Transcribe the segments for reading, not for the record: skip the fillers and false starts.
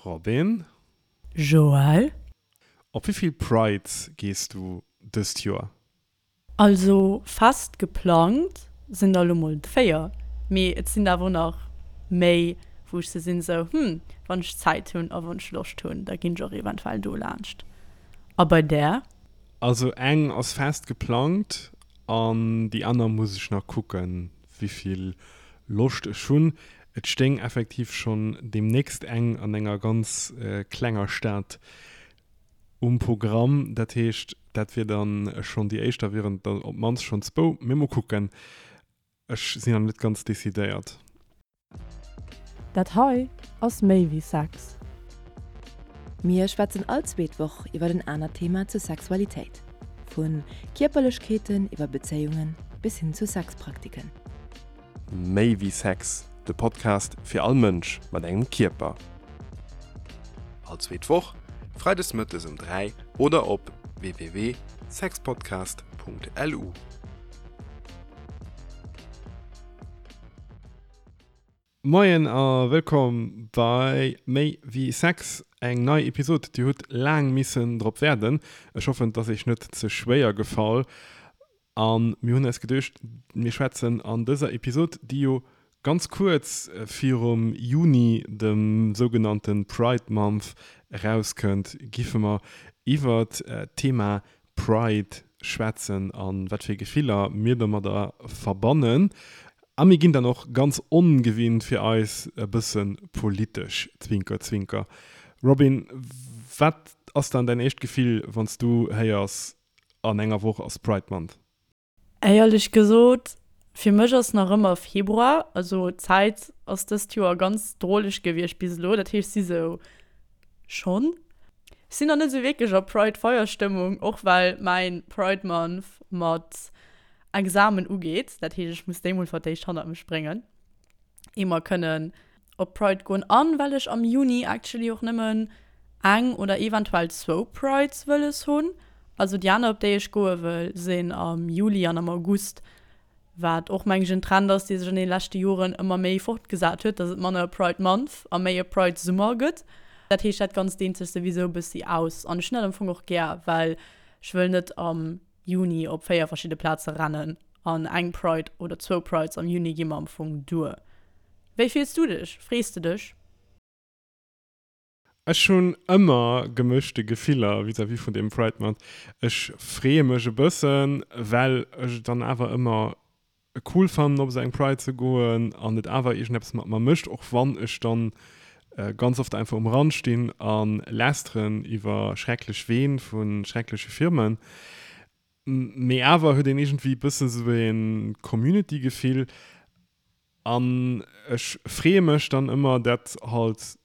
Robin. Joël. Op wéi vill Prides gees du dëst Joer? Also fest geplangt sinn der elo mol 4, mee et sinn der awer och nach méi wou ech sou sinn sou hm wann ech Zäit hunn a wann ech Loscht hunn da ginn ech och eventuell do laanscht. A bei där? Also eng ass fest geplangt an déi aner muss ech nach kucken wéivill Loscht ech hunn. Et stéing effektiv schonn deemnächst eng an enger ganz klenger Stad um Programm. Dat heescht, dat wier dann schonn déi éischt, da wieren et der op d'mannst schonn zwou. Mee mol kucken, ech sinn nach net ganz decidéiert. Dat hei ass méi wéi Sex. Mir schwätzen all zweet Woch iwwer en anert Thema zur Sexualitéit. Vu Kierperlechkeeten iwwer Bezéiungen bis hin zu Sexpraktiken. Méi wéi Sex, de Podcast fir all Mënsch mat engem Kierper. All zweet Woch, freides mëttes um 3 oder op www.sexpodcast.lu. Moien a wëllkomm bei Méi wéi Sex, eng nei Episod. Dir hutt laang missen drop waarden. Ech hoffen, et ass iech net ze schwéier gefall. A mir hunn eis geduecht, mir schwätzen an dëser Episod, déi jo ganz kuerz virum Juni, dem sougenannte Pride Month, erauskënnt, giffe mer iwwert d'Thema Pride schwätzen a wat fir Gefiller mir domadder verbannen. A mir ginn dann och ganz ongewinnt fir eis e bësse politesch, Zwinker Zwinker. Robin, wat ass dann däin éischt Gefill, wann s du héiers, An enger Woch ass Pride Month. Éierlech gesot, fir mech ass nach ëmmer Februar, also d'Zäit ass dëst Joer ganz droleg gewiescht bis elo, dat heescht si sou schonn. Ech sinn nach net sou wierklech a Pride Feierstëmmung, och well mäin Pride Month mat Examen ugeet, dat heescht ech muss déi mol fir d'éischt hannert mech bréngen. ier mer kënnen op Pride goen an well ech am Juni actually och nëmmen eng oder eventuell zwou Prides wëlles hunn. Also déi aner op déi ech goe wëll sinn am Juli an am August, wat och meng ech en Trend ass dee sech an deene leschte Joren ëmmer méi fortgesat huet, dass et manner e Pride Month a méi e Pride Summer gëtt. Dat heescht dat Ganzt deent sech souwisou e bëssi aus an ech hunn dat am Fong och gär, well ech wëll net am Juni op 4 verschidde Plaze rennen an eng Pride oder zwou Prides am Juni gi mer am Fong duer. Wéi fills du dech? Frees de dech? Ech hunn ëmmer gemëschte Gefiller vis-à-vis vun deem Pride Month. Ech freeë mech e bëssen, well ech et dann awer ëmmer cool fannen op esou eng Pride ze goen an et awer iergendeppes mat mer mécht, och wann ech dann ganz oft einfach um Rand stinn a lästeren iwwer schrecklech Ween vu schreckleche Firmen. Mee awer huet een iergendwéi e bëssen esou e Community-Gefill an ech freeë mech dann ëmmer, dat halt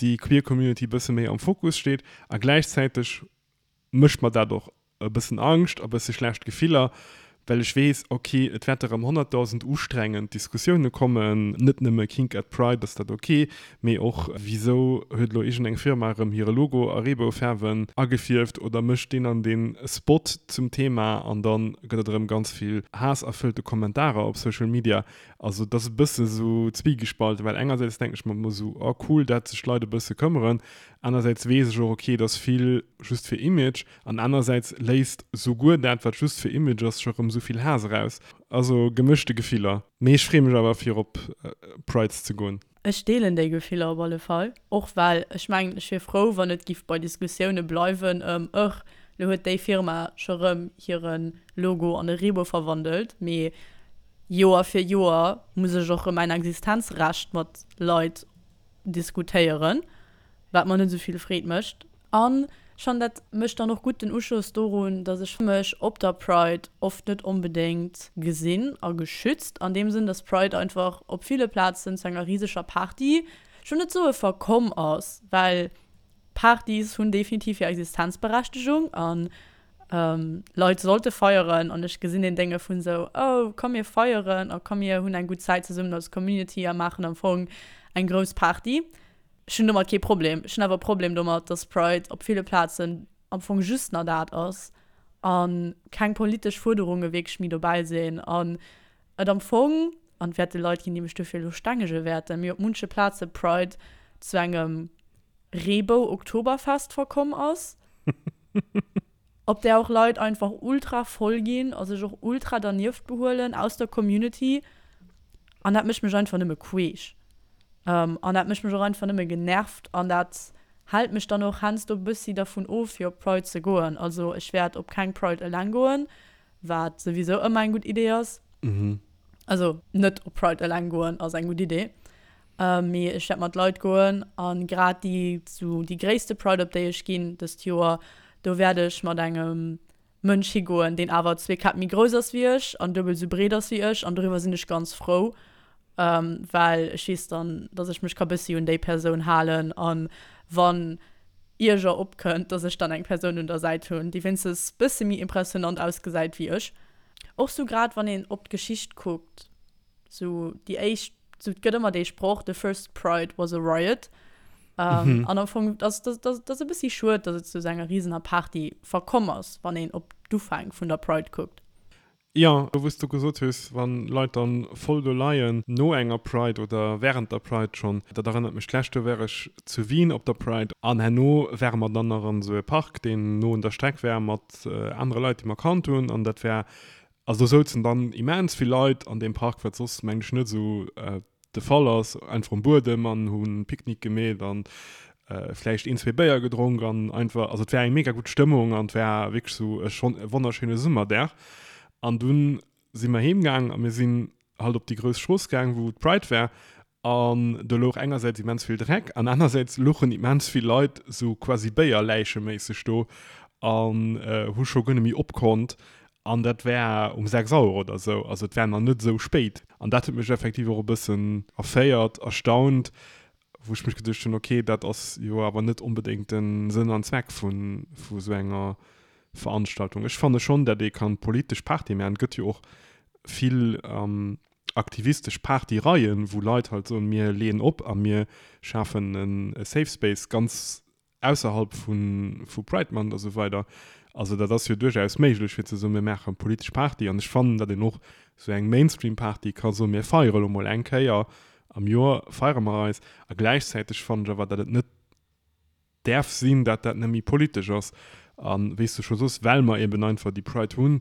déi queer Community e bësse méi am Fokus steet a gläichzäiteg mécht mer dat och e bëssen Angscht a bësse schlecht Gefiller, well ech weess, ok, et wäerte rëm 100.000 ustrengend Diskussioune kommen, net nëmme Kink at Pride, ass dat ok, mee och wisou huet elo iergendeng Firma erëm hire Logo a Reeboufaarwen agefierft oder mécht deen an dee Spot zum Thema an da gëtt et erëm ganz vill haasserfëllte Kommentarer op Social Media. Also et ass e bësse sou zwiegespalten, well engersäits denken ech mer ëmmer sou, oh cool, dat sech d'Leit e bësse këmmeren, anersäits weess ech och, ok, et ass vill just fir Image an anersäits léisst souguer dat, wat just fir Image ass, scho rëm sou vill Haass eraus. Also gemëschte Gefiller, mee ech freeë mech awer fir op Prides ze goen. Ech deelen déi Gefiller op alle Fall, och well ech mengen, ech wier frou, wann et giff bei Diskussioune bleiwen ëm, ëch, lo huet déi Firma scho rëm hire Logo an e Reebou verwandelt, mee Joer fir Joer muss ech och rëm mäin Existenzrecht mat Leit diskutéieren, wat mer net esou vill Freed mécht. An schonn dat mécht dann och gutt den Uschoss dorun, dass ech mech op der Pride oft net onbedéngt gesinn a geschützt, an deem Sënn, dass Pride einfach op ville Plazen zu enger riseger Party, ech wëll net soe verkomm ass, well Partys hunn definitiv hir Existenzberechtegung an Leit sollte feieren an ech gesinn deen Dénge vun esou, oh komm mir feieren a komm mir hunn eng gutt Zäit zesummen als Community a maachen am Fong eng grouss Party. Ech hunn domat kee Problem. Ech hunn awer e Problem domat, dass Pride op ville Plazen am Fong just nach dat ass a keng politesch Fuerderunge wierklech méi dobäi sinn an et am Fong, an et wäerte Leit ginn, déi mech dofir elo stengege wäerten, mee op munche Plaze Pride zu engem. Reebou-Oktoberfest verkomm ass, op där och Leit einfach ultra voll ginn a sech och ultra dernieft behuelen aus der Community. An dat mécht mech einfach nëmme queesch. An dat mécht mech och einfach nëmme genervt an dat hält mech dann och heiansdo e bëssi dervun of, fir op d'Pride ze goen. Also ech wäert op keng Pride eleng goen, wat souwisou ëmmer eng gutt Idee ass. Also net op Pride eleng goen ass eng gutt Idee. Mee ech wäert mat Leit goen an grad déi sou déi gréisste Pride op déi ech ginn dëst Joer, do wäert ech mat engem Mënsch higoen, deen awer zwee Käpp méi grouss ass wéi ech an duebel sou breet ass wéi ech an doriwwer sinn ech ganz frou, well ech weess dann, dass ech mech ka bëssi un déi Persoun halen an wann Ierger opkënnt, dass ech dann eng Persoun un der Säit hunn, déi wéinstens bësse méi impressionant ausgesäit wéi ech. Och sou grad wann een op d'Geschicht kuckt, Sou déi éischt, sou et gëtt ëmmer dee Sproch, the first pride was a riot. Um, An am Fong, dat ass, dat ass e bëssi schued, datt et zu esou enger risener Party verkomm ass, wann een op d'Ufäng vun der Pride kuckt. Jo, wou s du gesot hues, wann Leit dann voll do leien no enger Pride oder während der Pride schonn, dat erënnert mech, d'lescht Joer war ech zu Wien op der Pride an herno ware mer dann nach an esou e Park, deen no un der Streck war, mat anere Leit, déi mer kannt hunn an dat war Also do souzen dann immens vill Leit an deem Park, wat soss mengen ech net esou de Fall ass, einfach um Buedem an hu Picknick gemeet an vläicht een, zwee Béier gedronk an einfach, also et war eng mega gutt Stëmmung an et war wierklech esou e schonn e wonnerschéine Summerdag. An dunn si mer heem gaang a mir sinn halt op déi grouss Strooss gaang, wou d'Pride war An do louch engersäits immens vill Dreck an anersäits louchen immens vill Leit sou quasi béierläicheméisseg do an hu scho guer net méi opkonnt. An dat war um 6 Auer oder sou, also et war nach net sou spéit. An dat huet mech effektiv och e bëssen erféiert, erstaunt, wou ech mech geduecht hunn, ok, dat ass jo awer net onbedéngt de Sënn an Zweck vu sou enger Veranstaltung. Ech fanne schonn, dat ee kann politesch Party maachen. Et gëtt jo och vill aktivistesch Partyreien, wou Leit halt soen, mir leeën op a mir schafen e Safe Space ganz ausserhalb vu Pride Month a sou weider. Also dat ass jo duerchaus méiglech fir ze soen, mir maache politesch Party. An ech fannen, datt een och sou eng Mainstream-Party ka soen, mir feiere lo mol eng Kéier am Joer, feiere mer eis. A gläichzäiteg fannen ech awer, datt et net däerf sinn, datt dat net méi politesch ass. A wéi s du scho soss, well mer eben einfach déi Pride hunn,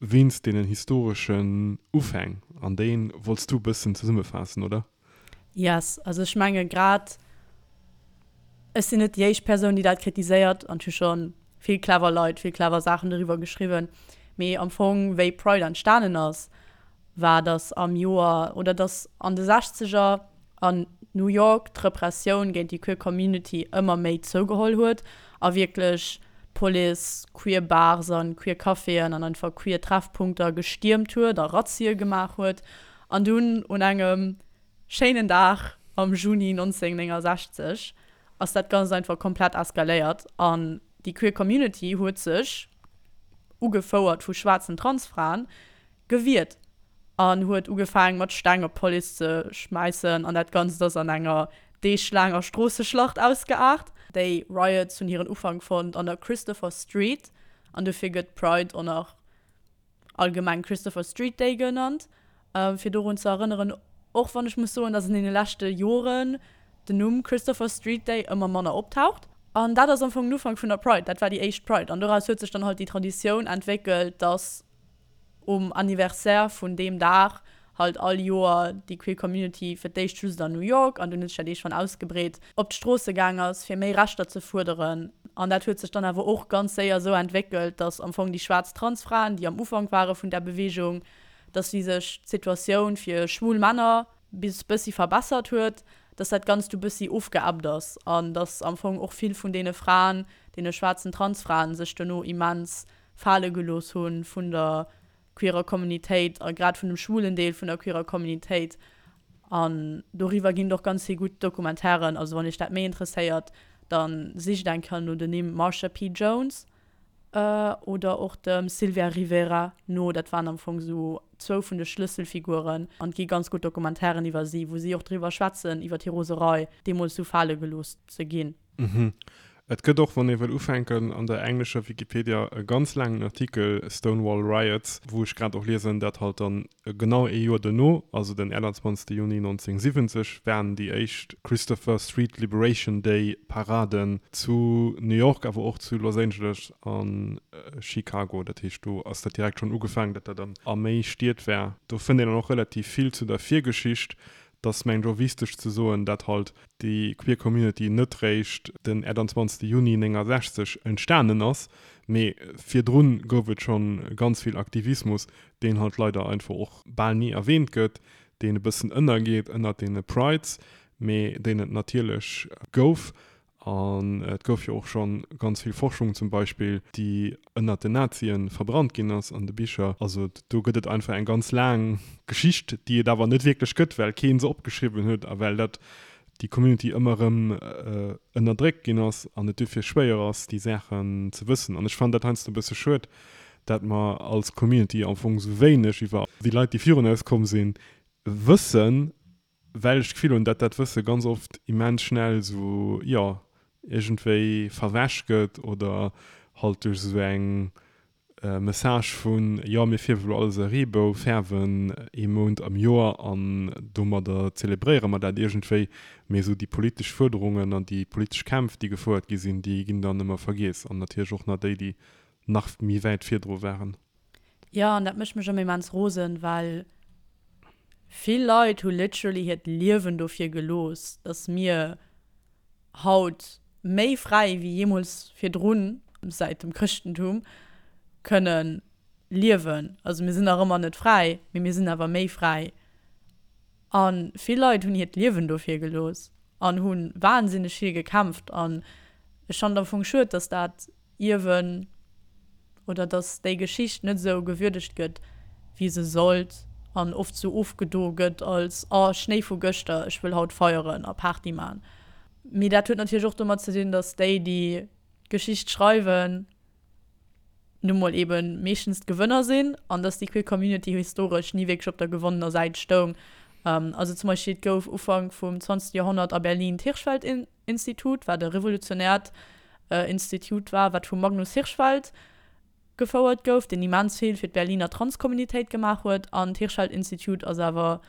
Wéinst deenen historeschen Ufäng, an déi wollts du e bëssen zesummefaassen, oder? Yes, also ech menge grad, ech sinn net déi éischt Persoun, déi dat kritiséiert, an et hu scho vill clever Leit vill clever Saachen doriwwer geschriwwen, mee am Fong wéi Pride entstanen ass, war datt am Joer, oder datt an de Sechzeger an New York d'Repressioun géint déi queer Community ëmmer méi zougeholl huet a wierklech d'Police queer Bars an queer Caféen an einfach queer Treffpunkter gestiermt huet a Razzie gemaach huet. An dunn un engem schéinen Dag am Juni 1969 ass dat Ganzt einfach komplett eskaléiert an déi queer Community huet sech, ugefouert vu schwaarzen Transfraen, gewiert an huet ugefaang mat Steng op d'Police ze schmäissen an dat Ganzt ass an enger deeglaanger Stroosseschlacht ausgeaart. Déi Riots hunn hiren Ufank fonnt an der Christopher Street an dofir gëtt d'Pride och nach allgemeng Christopher Street Day genannt, fir dorun ze erënneren, och wann ech muss soen, dass an deene leschte Joren den Numm Christopher Street Day ëmmer manner optaucht. An dat ass am Fong den Ufank vun der Pride, dat war déi éischt Pride an doraus huet sech dann halt déi Traditioun entwéckelt, dass um Anniversaire vun deem Dag halt all Joer déi queer Community, fir d'éischt just an New York an dunn huet sech dat iergendwann ausgebreet, op d'Stroosse gaang ass fir méi Rechter ze fuerderen. An dat huet sech dann awer och ganz séier esou entwéckelt, datt am Fong déi schwaarz Transfraen, déi am Ufank ware vun där Beweegung, datt wéi sech d'Situatioun fir schwul Männer bis bëssi verbessert huet, datt dat Ganzt du bëssi ofgeebbt ass an datt am Fong och vill vun deene Fraen, deene schwaarzen Transfraen sech dono immens fale gelooss hu vun der queerer Communitéit a grad vun dem schwulen Deel vun der queerer Communitéit. An doriwwer ginn et och ganz vill gutt Documentairen. Also wann iech dat méi interesséiert, da sicht eng Kéier no den Nimm Marsha P. Jones oder och dem Sylvia Rivera no. Dat waren am Fong esou zwou vun de Schlësselfiguren. An et gi ganz gutt Documentairen iwwer si, wou si och driwwer schwätzen, iwwer hir Roserei, deemools esou fale gelooss ze ginn. Mhm. Et gëtt och, wann ee wëll ufänken, an der englescher Wikipedia e ganz laangen Artikel Stonewall Riots, wou ech grad och liesen, dat halt dann genau ee Joer duerno, also den 28 Juni 1970, waren déi éischt Christopher Street Liberation Day Paraden zu New York, awer och zu Los Angeles a Chicago. Dat heescht, do ass dat direkt schonn ugefaangen, datt dat dann a méi Stied war. Do fënnt een dann och relativ vill zu der Virgeschicht. Et ass mengen ech och wichteg ze soen, dat halt déi queer Community net réischt den 28 Juni 69 entstanen ass, mee virdrun gouf et schonn ganz vill Aktivismus, deen halt leider einfach och bal ni erwähnt gëtt, deen e bëssen ënnergeet ënnert deene Prides, mee deen et natierlech gouf. An et gouf jo och scho ganz vill Forschung zum Beispill, déi ënnert den Nazien verbrannt ginn ass an de Bicher. Also do gëtt et einfach eng ganz laang Geschicht, déi et awer net wierklech gëtt, well kee se opgeschriwwen huet a well dat déi Community ëmmer erëm ënnerdréckt ginn ass an et dofir schwéier ass, déi Saachen ze wëssen. An ech fannen dat heiansdo e bësse schued, dat mer als Community am Fong esou wéineg iwwer déi Leit, déi virun eis komm sinn, wëssen. Well ech d'Gefill hunn, dat dat Wësse ganz oft immens schnell esou, jo, iergendwéi verwäsch gëtt oder halt duerch esou eng Message vun, jo, mir fierwe lo alles e Reebou, fäerwen ee Mount am Joer an domadder zelebréiere mer dat iergendwéi. Mee esou déi politesch Fuerderungen an déi politesch Kämpf, déi gefouert gi sinn, déi ginn dann ëmmer vergiess. An natierlech och nach déi, déi nach méi wäit virdru waren. Jo, an dat mécht mech ëmmer immens rosen, well vill Leit hu literally hiert Liewen dofir gelooss, dass mir haut méi fräi wéi jeemools virdrun, säit dem Chrëschtentum, kënne liewen. Also mir sinn nach ëmmer net fräi, mee mir sinn awer méi fräi. A vill Leit hunn hiert Liewen dofir gelooss an hu wahnsinneg vill gekämpft. An ech fannen et am Fong schued, dass dat Ierwen oder dass déi Geschicht net esou gewürdegt gëtt, wéi se sollt an oft sou ofgedo gëtt als, oh, Schnéi vu gëschter, ech wëll haut feieren a Party man. Mee dat huet natierlech och domat ze dinn, dass déi, déi d'Geschicht schreiwen, nu mol eben meeschtens d'Gewënner sinn an dass déi queer Community historesch ni wierklech op der gewonnener Säit stoung. Also zum Beispill, et gouf Ufank vum 20. Joerhonnert a Berlin d'Hirschfeld Institut, wat e revolutionäert Institut war, wat vum Magnus Hirschfeld gefouert gouf, deen immens vill fir d'Berliner Transcommunitéit gemaach huet. An d'Hirschfeld Institute ass awer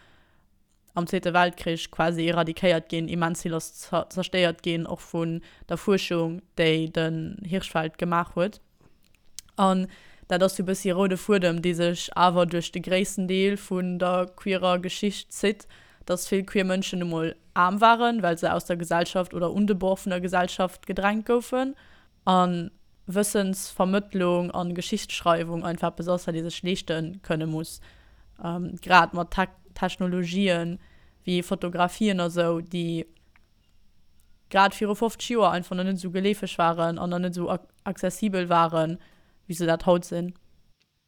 am Zweete Weltkrich quasi eradikéiert ginn, immens vill ass zerstéiert ginn, och vun der Fuerschung, déi den Hirschfeld gemaach huet. An dat ass sou e bëssi e roude Fuedem, dee sech awer duerch de gréissten Deel vun der queerer Geschicht zitt, dass vill queer Mënschen nu mol aarm waren, well se aus der Gesellschaft oder un de Bord vun der Gesellschaft gedrängt goufen. A Wëssensvermëttlung a Geschichtsschreiwung einfach eppes ass, wat ee sech leeschte kënne muss. Grad mat Technologien wéi Fotografien a sou, déi grad viru 50 Joer einfach nach net esou geleefeg waren an nach net esou accessibel waren, wéi se dat haut sinn.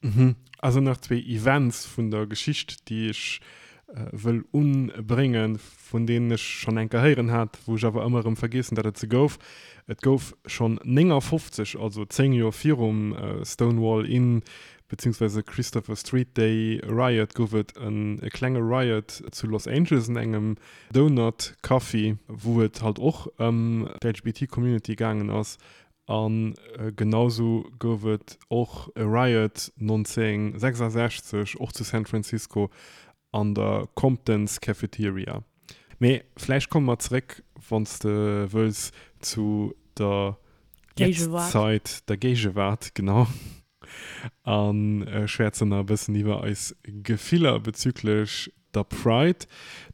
Mhm. Also nach zwee Events vun der Geschicht, déi ech wëll unbréngen, vun deenen ech schonn eng Kéier héieren hat, wou ech awer ëmmer erëm vergiessen, datt et se gouf. Et gouf schonn 59, also 10 Joer virum Stonewall Inn beziehungsweise Christopher Street Day Riot, gouf et e klenge Riot zu Los Angeles an engem Donut Coffee, wou et halt och ëm d'LGBT Community gaangen ass. A genausou gouf et och e Riot 1966, och zu San Francisco an der Compton's Cafeteria. Mee vläicht komme mer zeréck, wann s de wëlls, zu der Jetztzeit, der Géigewaart, genau. A schwätzen nach e bëssen iwwer eis Gefiller bezüglech der Pride.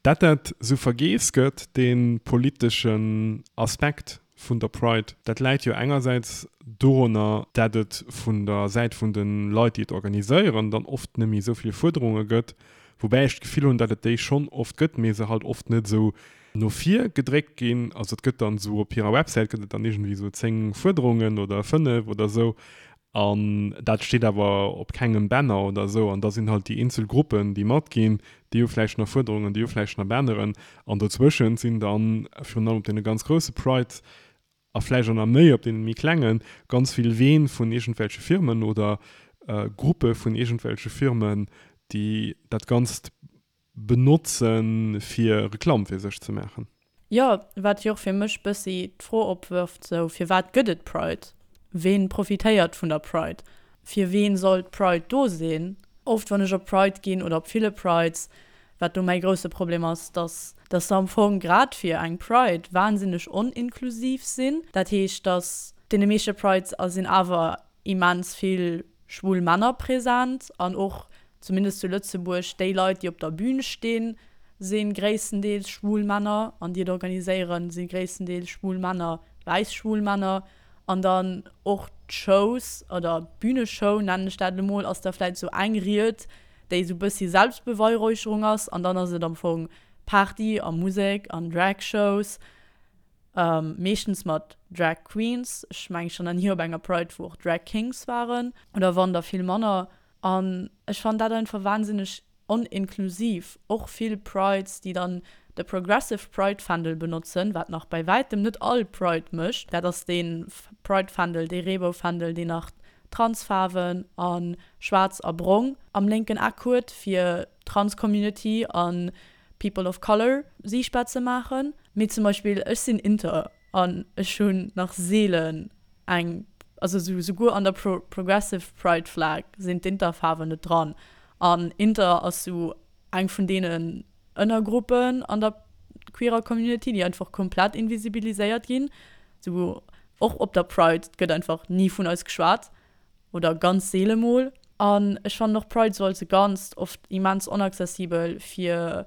Dat dat sou vergeess gëtt, dee politeschen Aspekt vun der Pride, dat läit jo engersäits dorunner, dat et vun der Säit vun de Leit, déi et organiséieren, dann oft net méi esou vill Fuerderunge gëtt, woubäi ech d'Gefill hunn, dat et déi schonn oft gëtt, mee se halt oft net esou no vir gedréckt ginn. Also et gëtt dann esou op hirer Websäit gëtt et dann iergendwéi esou 10 Fuerderungen oder 5 oder esou an dat steet awer op kengem Banner oder esou an da sinn halt déi eenzel Gruppen déi matginn, déi hu vläicht nach Fuerderungen, déi hu vläicht nach Banneren an dozwëschent sinn dann virun allem op deene ganz grousse Prides a vläicht och nach méi op deene méi klengen, ganz vill Ween vun iergendwelche Firmen oder Gruppe vun iergendwelche Firmen, déi dat Ganzt benotzen, fir Reklamm fir sech ze maachen. Jo, wat jo och fir mech bëssi d'Fro opwërft, sou, firwat gëtt et Pride? Ween profitéiert vun der Pride? Fir ween soll d'Pride do sinn? Oft wann ech op Pride ginn oder op ville Prides, wat do mäi grousse Problem ass, dass dass se am Fong grad fir eng Pride wahnsinneg oninklusiv sinn. Dat heescht, dass deene meeschte Prides a sinn awer immens vill schwul Männer present an och, zumindest zu Lëtzebuerg, déi Leit, déi op der Bühn stinn, si gréisstendeels schwul Männer an déi et organiséieren, si gréisstendeels schwul Männer, wäiss schwul Männer. An dann och d'Shows oder d'Bühneshow, nennen ech dat elo mol, ass da vläit esou eng Ried, déi esou bëssi Selbstbeweihräucherung ass an dann ass et am Fong Party a Musek an Drag-Shows. Meeschtens mat Drag Queens. Ech mengen ech war nach ni op enger Pride wou och Drag Kings waren, oder wann da vill manner. An ech fannen dat einfach wahnsinneg oninklusiv. Och vill Prides déi dann de Progressive Pride Fändel benotzen, wat nach bei wäitem net all Pride mécht. Dat ass dee Pride Fändel, dee Reeboufändel deen nach Transfaarwen a schwaarz a brong am lénken Eck huet fir Trans Community an People of Color siichtbar ze maachen. Mee zum Beispill ech sinn inter an ech hunn nach seelen eng, also souguer an der Progressive Pride Flag sinn d'Interfaarwen net dran. An inter ass sou eng vun deenen Ënnergruppen an der queerer Community, déi einfach komplett invisibiliséiert ginn. Sou och op der Pride gëtt einfach ni vun eis geschwat. Oder ganz seele mol. An ech fannen och Pride sou als e Ganzt oft immens onaccessibel fir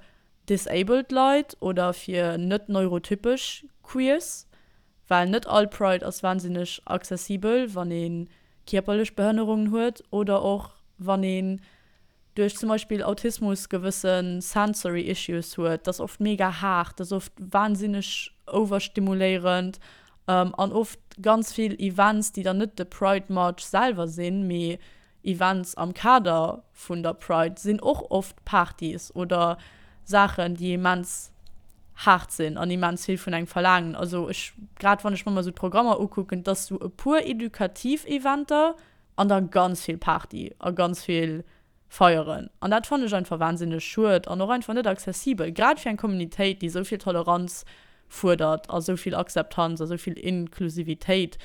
disabled Leit oder fir net neurotypesch Queers, well net all Pride ass wahnsinneg accessibel, wann ee kierperlech Behënnerungen huet oder och wann een duerch zum Beispill Autismus gewësse sensory issues huet, dat ass oft mega haart, dat ass oft wahnsinneg overstimuléierend an oft ganz vill Events, déi dann net de Pride March selwer sinn, mee Events am Kader vun der Pride sinn och oft Partys oder Saachen, déi immens haart sinn an immens vill vun engem verlaangen. Also ech, grad wann ech mer mol esou d'Programmer ukucken, et ass esou e puer edukativ Eventer, An da ganz vill Party a ganz vill feieren. An dat fannen ech einfach wahnsinneg schued an och einfach net accessibel, grad fir eng Communitéit, déi esou vill Toleranz fuerdert a esou vill Akzeptanz a esou vill Inklusivitéit,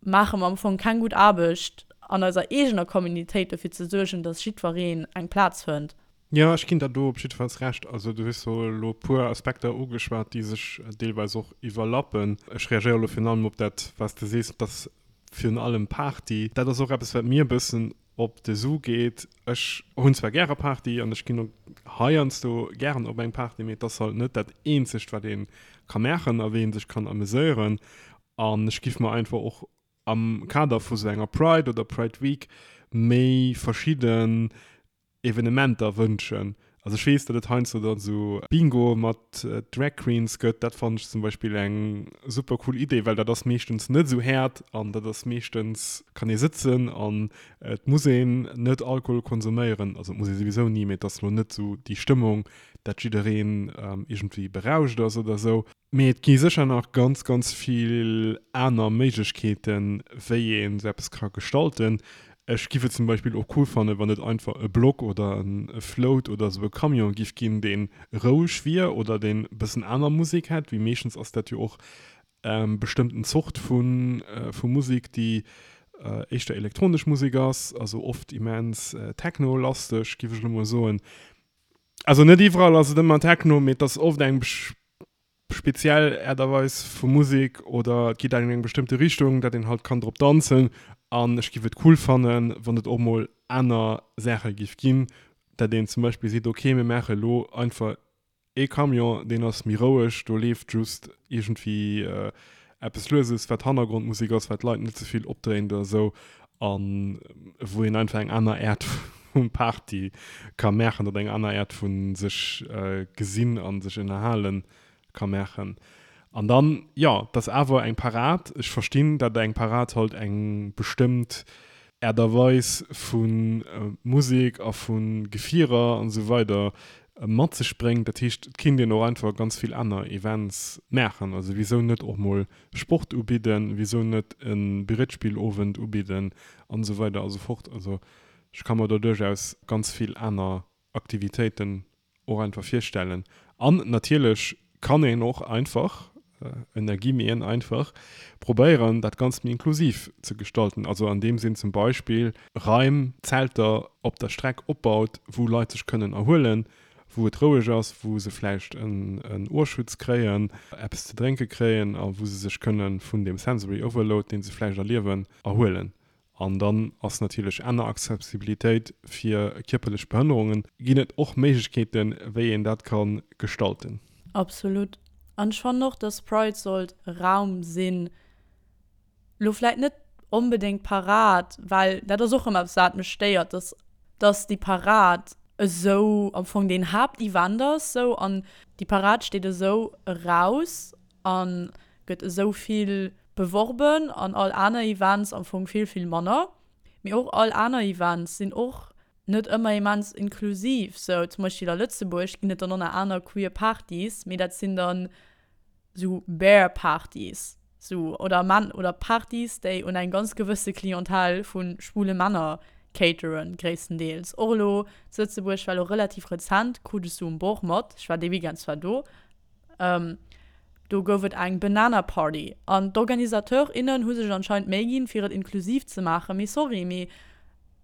maache mer am Fong keng gutt Aarbecht an eiser eegener Communitéit dofir ze suergen, dass jiddwereen eng Plaz fënnt. Jo, ech ginn der do op jiddefalls Recht. Also du hues jo elo e puer Aspekter ugeschwat, déi sech deelweis och iwwerlappen. Ech reagéiere elo virun allem op dat, wat s de sees, dass virun allem Party, dat ass och eppes, wat mir e bëssen op de Su geet. Ech hunn zwar gäre Party an ech ginn och heiansdo gären op eng Party, mee et ass halt net dat eenzegt, wat ee ka maachen a wéi ee sech kann ameséieren. An ech giff mer einfach och am Kader vu sou enger Pride oder Pride Week méi verschidden Evenementer wënschen. Also ech weess, datt et heiansdo dann esou Bingo mat Drag Queens gëtt. Dat fannen ech zum Beispill eng super cool Idee, well dat ass meeschtens net esou haart an dat ass meeschtens, kann ee sëtzen an et muss een net Alkohol konsuméieren. Also et muss ee souwisou ni, mee et ass elo net esou déi Stëmmung, dat jiddereen iergendwéi berauscht ass oder esou. Mee et gi sécher nach ganz, ganz vill aner Méiglechkeeten, wéi een esou eppes ka gestalten. Ech giff et zum Beispill och cool fannen, wann et einfach e Block oder e Float oder esou e Camion giff ginn, dee roueg wier oder deen e bëssen aner Musek hätt, wéi meeschtens ass dat jo och bestëmmten Zort vu Musek, déi éischter elektronesch Musek ass, also oft immens techno-lasteg, giff ech elo mol soen. Also net iwwerall ass et ëmmer Techno, mee et ass oft eng speziell Äert a Weis vu Musek oder et geet an eng bestëmmte Richtung, dat een halt kann drop danzen. An ech giff et cool fannen, wann et och mol aner Saache giff ginn, dat een zum Beispill seet, ok mir maache elo einfach ee Camion, deen ass méi roueg, do leeft just iergendwéi eppes Lueses, wat Hannergrondmusek ass, wat d'Leit net ze vill opdréint oder esou a wou een einfach eng aner Äert vu Party ka maachen oder eng aner Äert vu sech gesinn a sech ënnerhale ka maachen. An dann, jo, et ass awer eng Parad. Ech verstinn, datt eng Parad halt eng bestëmmt Äert a Weis vu Musek a vu Gefierer an esou weider mat sech bréngt. Dat heescht, et kinnt een och einfach ganz vill aner Events maachen. Also wisou net och mol Sport ubidden, wisou net e Brietspillowend ubidden an esou weider a sou fort. Also ech ka mer do duerchaus ganz vill aner Aktivitéiten och einfach virstellen. An natierlech. kann een och einfach, ënner Guillemeten einfach, probéieren, dat Ganzt méi inklusiv ze gestalten. Also an deem Sinn zum Beispill Raim, Zelter op der Streck opbaut, wou Leit sech kënnen erhuelen, wou et roueg ass, wou se vläicht en Ohrschutz kréien, eppes ze drénke kréien a wou se sech kënne vun deem Sensory Overload, dee se vläicht erliewen, erhuelen. An dann ass natierlech aner Accessibilitéit fir kierperlech Behënnerungen, ginn et och Méiglechkeeten, wéi een dat ka gestalten. Absolut. An ech fannen och, dass Pride sollt e Raum sinn, lo vläit net onbedéngt d'Parad, well dat ass och ëmmer eppes, wat mech stéiert, dass, dass déi Parad esou am Fong deen Haaptevent ass, sou, an déi Parad steet esou eraus a gëtt esou vill beworben an all aner Events am Fong vill, vill manner. Mee och all aner Events sinn och net ëmmer immens inklusiv. Sou zum Beispill a Lëtzebuerg ginn et dann och nach aner queer Partys, mee dat sinn dann sou Bear Partys, sou oder Männ oder Partys, déi un eng ganz gewësse Clientèle vu schwule Männer cateren, gréisstendeels. Och elo zu Lëtzebuerg war elo relativ rezent, krut ech sou um Bord mat, ech war dee Weekend zwar do, Do gouf et eng Banana Party an d'Organisateur, innen hu sech anscheinend Méi ginn, fir et inklusiv ze maachen. Mee sorry, mee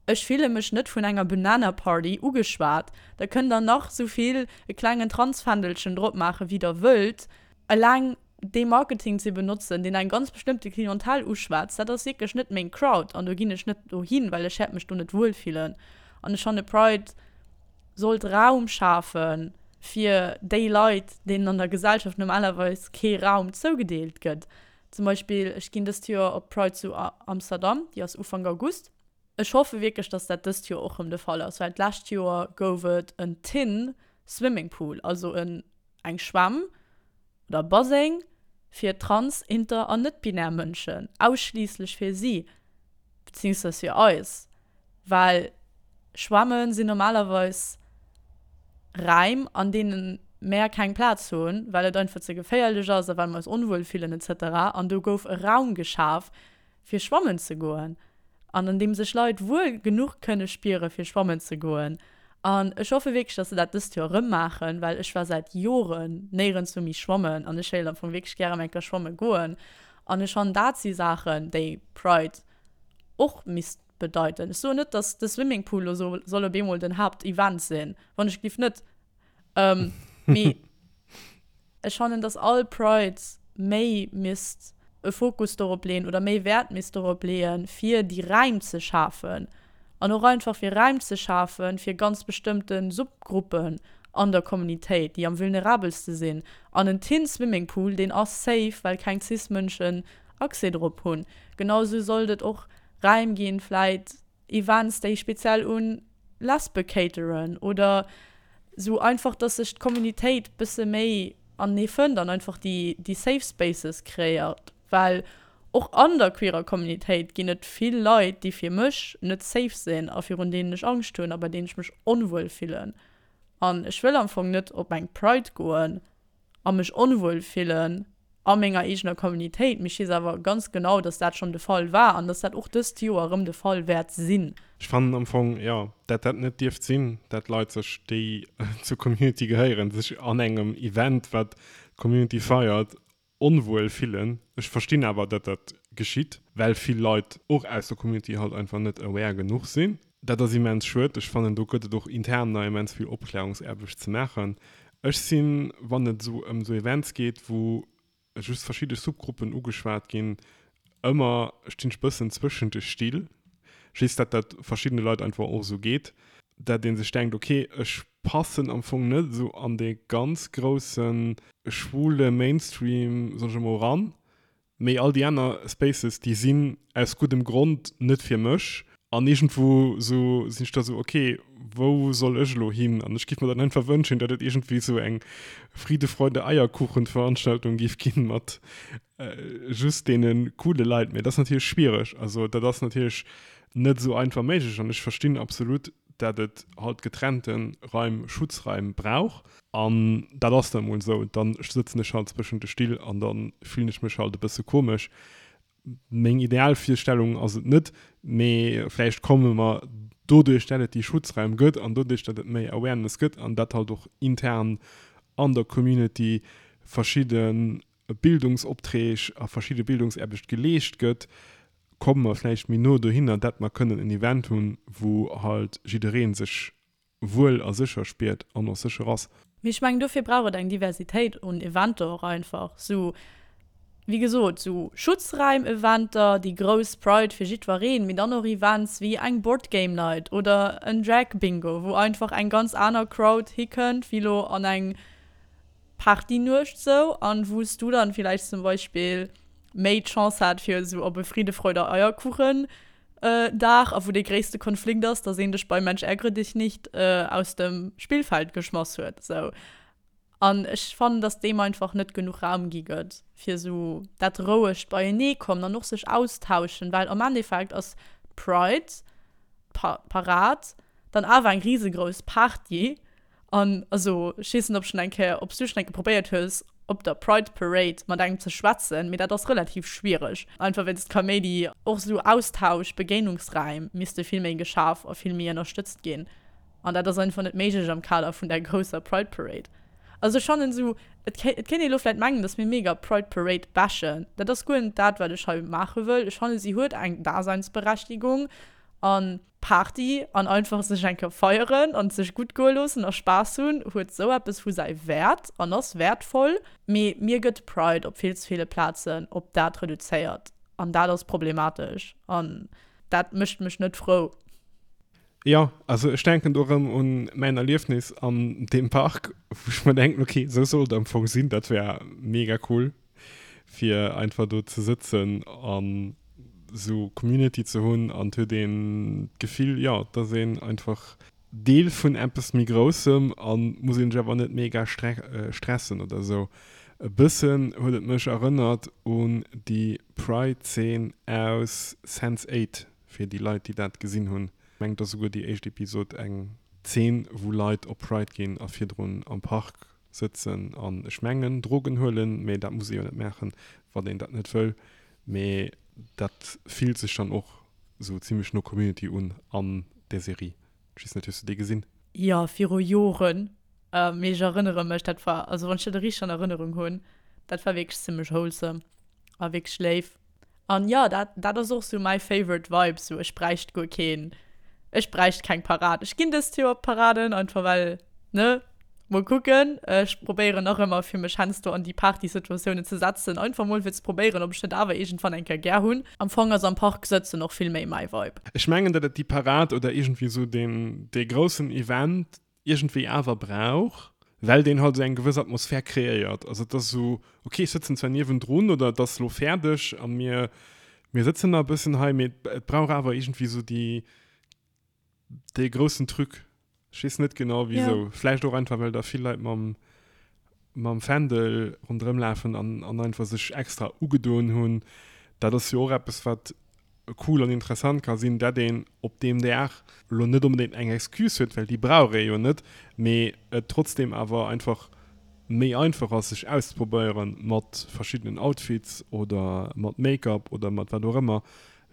ech fille mech net vun enger Banana Party ugeschwat. Da kënnt der nach sou vill e klengen Transfändelchen drop maachen, wéi der wëllt. Eleng dee Marketing ze benotzen, deen eng ganz bestëmmte Clientèle uschwätzt, dat ass wierklech net meng Crowd an do ginn ech net dohin, well ech wäert mech do net wuel fillen. An ech fanne Pride sollt Raum schafe fir déi Leit, deenen an der Gesellschaft normalerweis kee Raum zougedeelt gëtt. Zum Beispill, ech ginn dëst Joer op d'Pride zu Amsterdam, déi ass Ufank August. Ech hoffe wierklech, dass dat dëst Joer och rëm de Fall ass, well d'lescht Joer gouf et en Tin Swimming Pool, also en eng Schwämm oder Baseng fir trans-, inter an net-binär Mënschen, ausschliisslech fir si, beziehungsweise fir eis. Well Schwämme sinn normalerweis Räim, an deene mär keng Plaz hunn, well et einfach ze geféierlech ass a well mer eis onwuel fillen etc. An do gouf e Raum geschaf, fir schwammen ze goen an an deem sech Leit wuel genuch kënne spiere fir schwammen ze goen. An ech hoffe wierklech, dass se dat dëst Joer erëm maachen, well ech war säit Joren néierenswou méi schwammen an ech wéilt am Fong wierklech gären eng Kéier schwamme goen. An ech fannen, dat si Saachen, déi Pride och misst bedeiten. Ech soen net, dass de Swimmingpool lo soll op eemol den Haaptevent sinn, wann ech giff net. Mee ech fannen, dass all Pride méi misst e Fokus dorop leeën oder méi Wäert misst dorop leeën, fir déi Räim ze schafen an och einfach fir Räim ze schafen, fir ganz bestëmmte Subgruppen an der Communitéit, déi am vulnerabelste sinn. An en Teen Swimming Pool, deen ass safe, well keng Cis-Mënschen Accès drop hunn. Genau sou sollt et och Räim ginn, vläit Events, déi speziell un Lesbe cateren oder sou einfach, dass sech d'Communitéit bësse méi anenee fënnt an einfach déi déi Safe Spaces kreéiert, well och an der queerer Communitéit ginn et vill Leit, déi fir mech net safe sinn a virun deenen ech Angscht hunn a bei deenen ech mech onwuel fillen. An ech wëll am Fong net op eng Pride goen a mech onwuel fillen a menger eegener Communitéit, mee ech weess awer ganz genau, dass dat schonn de Fall war an dass dat och dëst Joer erëm de Fall wäert sinn. Ech fannen am Fong, jo, dat dat net dierft sinn, dat Leit sech, déi zur Community gehéieren, sech an engem Event, wat d'Community feiert, onwuel fillen. Ech verstinn awer, dat dat geschitt, well vill Leit och aus der Community halt einfach net aware genuch sinn. Dat ass immens schued. Ech fannen, do gëtt et och intern nach immens vill Opklärungsaarbecht ze maachen. Ech sinn, wann et esou ëm esou Events geet, wou just verschidde Subgruppen ugeschwat ginn, ëmmer, stinn ech bëssen zwëschent de Still. Ech weess, dat dat verschiddene Leit einfach och esou geet, dat ee sech denkt, okay, ech passen am Fong net esou an dee ganz grousse schwule Mainstream, soen ech emol, eran. Mee all déi aner Spaces, déi sinn aus guddem Grond net fir mech. An iergendwou sou sinn ech da sou, ok, wou soll ech elo hin? An ech giff mer dann einfach wënschen, datt et iergendwéi sou eng Friede, Freude, Eierkuchen-Veranstaltung giff ginn mat just deene coole Leit. Mee dat ass natierlech schwiereg. Also dat ass natierlech net esou einfach méiglech. An ech verstinn absolut, dat et halt getrennte Raim, Schutzraim brauch. An dat ass dann emol esou. Dann sëtzen ech halt zwëschent de Still an da fillen ech mech halt e bësse komesch. Meng Idealvirstellung ass et net, mee vläicht komme mer doduerch, dat et déi Schutzraim gëtt an doduerch, dat et méi Awareness gëtt an dat halt och intern an der Community. verschidde Bildungsopträg a verschidde Bildungsaarbecht geleescht gëtt, komme mer vläicht méi no dohinner, dat mer kënnen en Event hunn, wou halt jidderee sech wuel a sécher spiert an och sécher ass. Mee ech mengen, dofir brauch et eng Diversitéit un Eventer och einfach. Sou, wéi gesot, sou Schutzräim-Eventer, déi grouss Pride fir jiddwereen, mee dann och Events wéi eng Board Game Night oder en Drag Bingo, wou einfach eng ganz aner Crowd hikënnt wéi lo an eng Partynuecht sou, an wou s du dann villäicht zum Beispill méi d'Chance hat fir sou op e Friede, Freude, Eierkuchen Dag, a wou dee gréisste Konflikt ass, dass een dech bei Mensch ärgere dich nicht aus dem Spillfeld geschmass huet sou. An ech fannen, dass deem einfach net genuch Raum gi gëtt, fir sou dat rouegt Beieneekommen an och sech austauschen, well am Endeffekt ass d'Pride, d'Parad, dann awer eng risegrouss Party. An also, ech weess net, ob schonn eng Kéier, ob s du schonn eng Kéier probéiert hues, op der Pride Parade mat engem ze schwätzen, mee dat ass relativ schwiereg, einfach wéinst Kaméidi. Och esou Austausch, Begéinungsräim misste vill méi geschaf a vill méi ënnerstëtzt ginn. An dat ass einfach net méiglech am Kader vun där grousser Pride Parade. Also ech fannen esou, et kéint, et kéint ee lo vläit mengen, datt mir mega d'Pride Parade bashen. Dat ass guer net dat, wat ech hei maache wëll. Ech fanne si huet eng Daseinsberechtigung an. Party an einfach sech eng Kéier feieren an sech gutt goe loossen a Spaass hunn, huet sou eppes vu säi Wäert an ass wäertvoll. Mee mir gëtt Pride op vill ze ville Plazen op dat reduzéiert an dat ass problematesch an dat mécht mech net frou. Jo, also ech denken do erëm un mäin Erliefnis an deem Park, wou ech mer denken, ok, sou soll et am Fong sinn, dat wär mega cool. fir einfach do ze sëtzen an sou Community ze hunn an et huet een d'Gefill, jo, et ass een einfach Deel vun eppes méi Groussem an muss een sech awer net mega stressen oder sou. E bëssen huet et mech erënnert un déi Pride-Zeen aus Sense 8, fir déi Leit, déi dat gesinn hunn. Ech mengen, et ass souguer déi éischt Episod eng Zeen, wou Leit op Pride ginn a virdrun am Park sëtzen an ech mengen Drogen huelen, mee dat muss ee jo net maachen, wann een dat net wëll. Mee dat fillt sech dann och sou zimlech no Community un an där Serie. Ech weess net, hues du déi gesinn? Jo, viru Joren, mee ech erënnere mech, dat war, also wann ech dat richteg an Erënnerung hunn, dat war wierklech zimlech wholesome a wierklech léif. An jo, dat, dat ass och sou mäi favorite Vibe, sou ech bräicht guer keen, ech bräicht keng Parade. Ech ginn dëst Joer op d'Paraden, einfach well, ne, mol kucken. Ech probéieren nach ëmmer fir mech heiansdo an déi Partysituatiounen ze setzen, einfach mol fir ze probéieren, ob ech net awer iergendwann eng Kéier gär hunn. Am Fong ass am Park sëtzen och vill méi mäi Vibe. Ech mengen, datt et déi Parade oder iergendwéi sou deen, dee groussen Event iergendwéi awer brauch, well deen halt esou eng gewëss Atmosphär kreéiert. Also et ass esou, ok, ech sëtzen zwar niewendrun oder et ass elo fäerdeg a mir, mir sëtzen nach e bëssen hei, mee et brauch awer iergendwéi esou déi, dee groussen Truc. Ech weess net genau wisou. Vläicht och einfach, well da vill Leit mam, mam Fändel ronderëm lafen an, an einfach sech extra ugedoen hunn. Dat ass jo och eppes, wat cool an interessant ka sinn, dat een op deem Dag elo net onbedéngt eng Excuse huet, well déi brauch ee jo net, mee et trotzdeem awer einfach méi einfach ass sech auszeprobéiere mat verschiddenen Outfits oder mat Make-up oder mat wat och ëmmer,